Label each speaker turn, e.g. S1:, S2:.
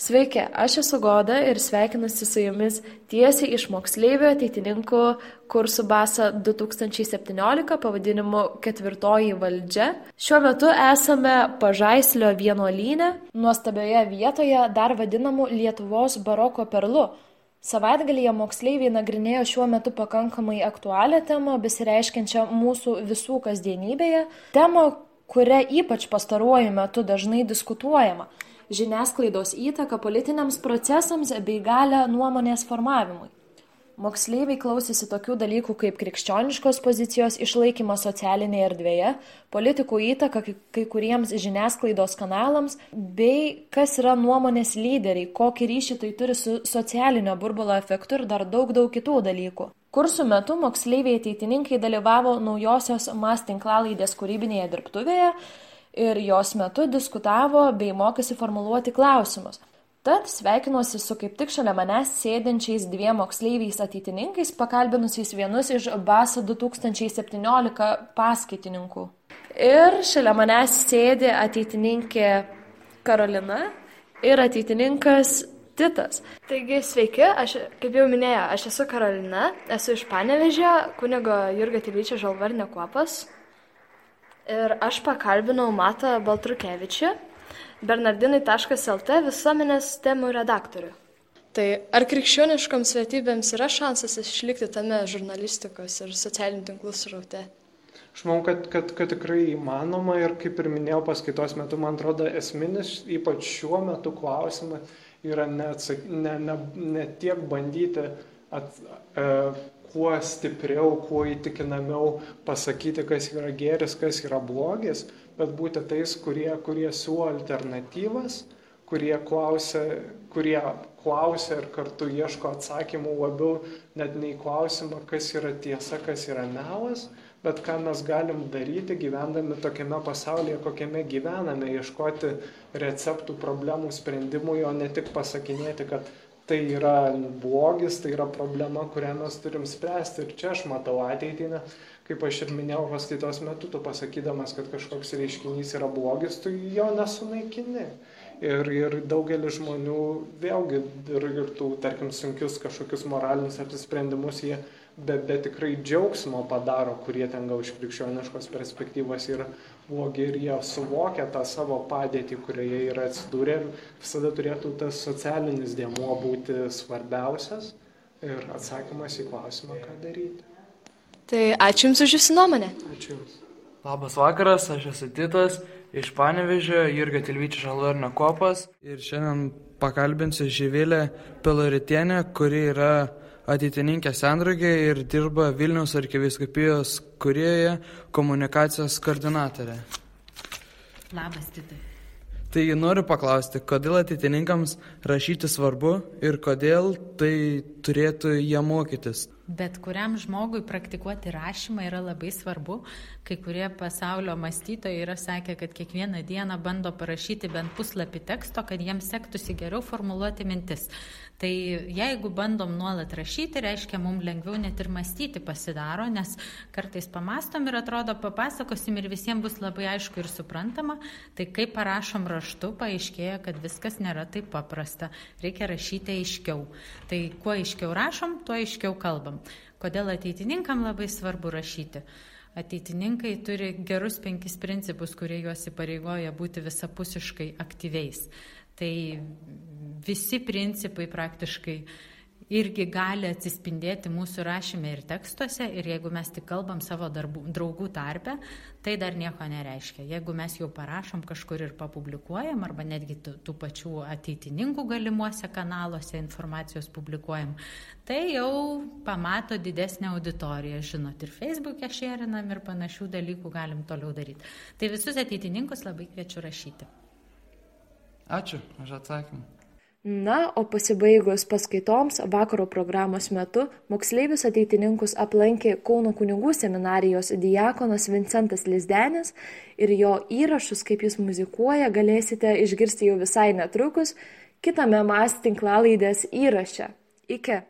S1: Sveiki, aš esu Goda ir sveikinuosi su jumis tiesiai iš moksleivių ateitininkų kursų BASA 2017 pavadinimu Ketvirtoji valdžia. Šiuo metu esame Pažaislio vienuolyne, nuostabioje vietoje dar vadinamu Lietuvos baroko perlu. Savaitgalyje moksleiviai nagrinėjo šiuo metu pakankamai aktualią temą, besireiškiančią mūsų visų kasdienybėje, temą, kuria ypač pastaruoju metu dažnai diskutuojama. Žiniasklaidos įtaka politiniams procesams bei galią nuomonės formavimui. Moksleiviai klausėsi tokių dalykų kaip krikščioniškos pozicijos išlaikymas socialinėje erdvėje, politikų įtaka kai kuriems žiniasklaidos kanalams, bei kas yra nuomonės lyderiai, kokį ryšį tai turi su socialinio burbulo efektu ir dar daug kitų dalykų. Kursų metu moksleiviai ateitininkai dalyvavo naujosios MAS tinklalaidės kūrybinėje dirbtuvėje, ir jos metu diskutavo bei mokėsi formuluoti klausimus. Tad sveikinuosi su kaip tik šalia manęs sėdinčiais dviem moksleiviais ateitininkais, pakalbinusiais vienus iš BASA 2017 paskaitininkų. Ir šalia manęs sėdi ateitininkė Karolina ir ateitininkas Titas.
S2: Taigi sveiki, aš, kaip jau minėjau, aš esu Karolina, esu iš Panevėžio, kunigo Jurgio Tilvyčio Žalvarinio kuopas. Ir aš pakalbinau Matą Baltrukevičių, bernardinai.lt visuomenės temų redaktorių. Tai ar krikščioniškoms vertybėms yra šansas išlikti tame žurnalistikos ir socialinių tinklų sraute?
S3: Aš manau, kad tikrai įmanoma ir kaip ir minėjau paskaitos metu, man atrodo, esminis, ypač šiuo metu klausimas yra ne tiek bandyti kuo stipriau, kuo įtikinamiau pasakyti, kas yra gėris, kas yra blogis, bet būti tais, kurie siūlo alternatyvas, kurie klausia ir kartu ieško atsakymų labiau net nei klausimą, kas yra tiesa, kas yra melas, bet ką mes galim daryti gyvendami tokiame pasaulyje, kokiame gyvename, ieškoti receptų, problemų, sprendimų, o ne tik pasakinėti, kad tai yra blogis, tai yra problema, kurią mes turim spręsti. Ir čia aš matau ateitį, kaip aš ir minėjau paskaitos metu, tu pasakydamas, kad kažkoks reiškinys yra blogis, tu jo nesunaikini. Ir daugelis žmonių vėlgi ir tų, tarkim, sunkius kažkokius moralinius apsisprendimus jie be tikrai džiaugsmo padaro, kurie ten gal iš krikščioniškos perspektyvos yra blogi ir jie suvokia tą savo padėtį, kurioje yra atsidūrę ir visada turėtų tas socialinis dėmuo būti svarbiausias ir atsakymas į klausimą, ką daryti.
S2: Tai ačiū Jums už Jūsų nuomonę.
S3: Ačiū Jums.
S4: Labas vakaras, aš esu Titas iš Panevėžio, Jurgio Tilvyčio Žalvarinio kuopas ir šiandien pakalbinsiu Živilę Piloritienę, kuri yra ateitininkė Sendraugė ir dirba Vilniaus arkivyskupijos kurijoje komunikacijos koordinatorė.
S5: Labas, Titai.
S4: Tai noriu paklausti, kodėl ateitininkams rašyti svarbu ir kodėl tai turėtų jie mokytis?
S5: Bet kuriam žmogui praktikuoti rašymą yra labai svarbu. Kai kurie pasaulio mąstytojai yra sakę, kad kiekvieną dieną bando parašyti bent puslapį teksto, kad jiems sektųsi geriau formuluoti mintis. Tai jeigu bandom nuolat rašyti, reiškia, mums lengviau net ir mąstyti pasidaro, nes kartais pamastom ir atrodo papasakosim ir visiems bus labai aišku ir suprantama. Tai kai parašom raštu, paaiškėja, kad viskas nėra taip paprasta. Reikia rašyti aiškiau. Tai kuo aiškiau rašom, tuo aiškiau kalbam. Kodėl ateitininkam labai svarbu rašyti? Ateitininkai turi gerus 5 principus, kurie juos įpareigoja būti visapusiškai aktyviais. Tai visi principai praktiškai irgi gali atsispindėti mūsų rašyme ir tekstuose ir jeigu mes tik kalbam savo draugų tarpe, tai dar nieko nereiškia. Jeigu mes jau parašom kažkur ir papublikuojam arba netgi tų pačių ateitininkų galimuose kanaluose informacijos publikuojam, tai jau pamato didesnę auditoriją, žinot, ir Facebook'e šėrinam ir panašių dalykų galim toliau daryti. Tai visus ateitininkus labai kviečiu rašyti.
S4: Ačiū už atsakymą.
S1: Na, o pasibaigus paskaitoms vakaro programos metu moksleivius ateitininkus aplankė Kauno kunigų seminarijos diakonas Vincentas Lizdenis ir jo įrašus, kaip jis muzikuoja, galėsite išgirsti jau visai netrukus kitame MAS tinklalaidės įraše. Iki.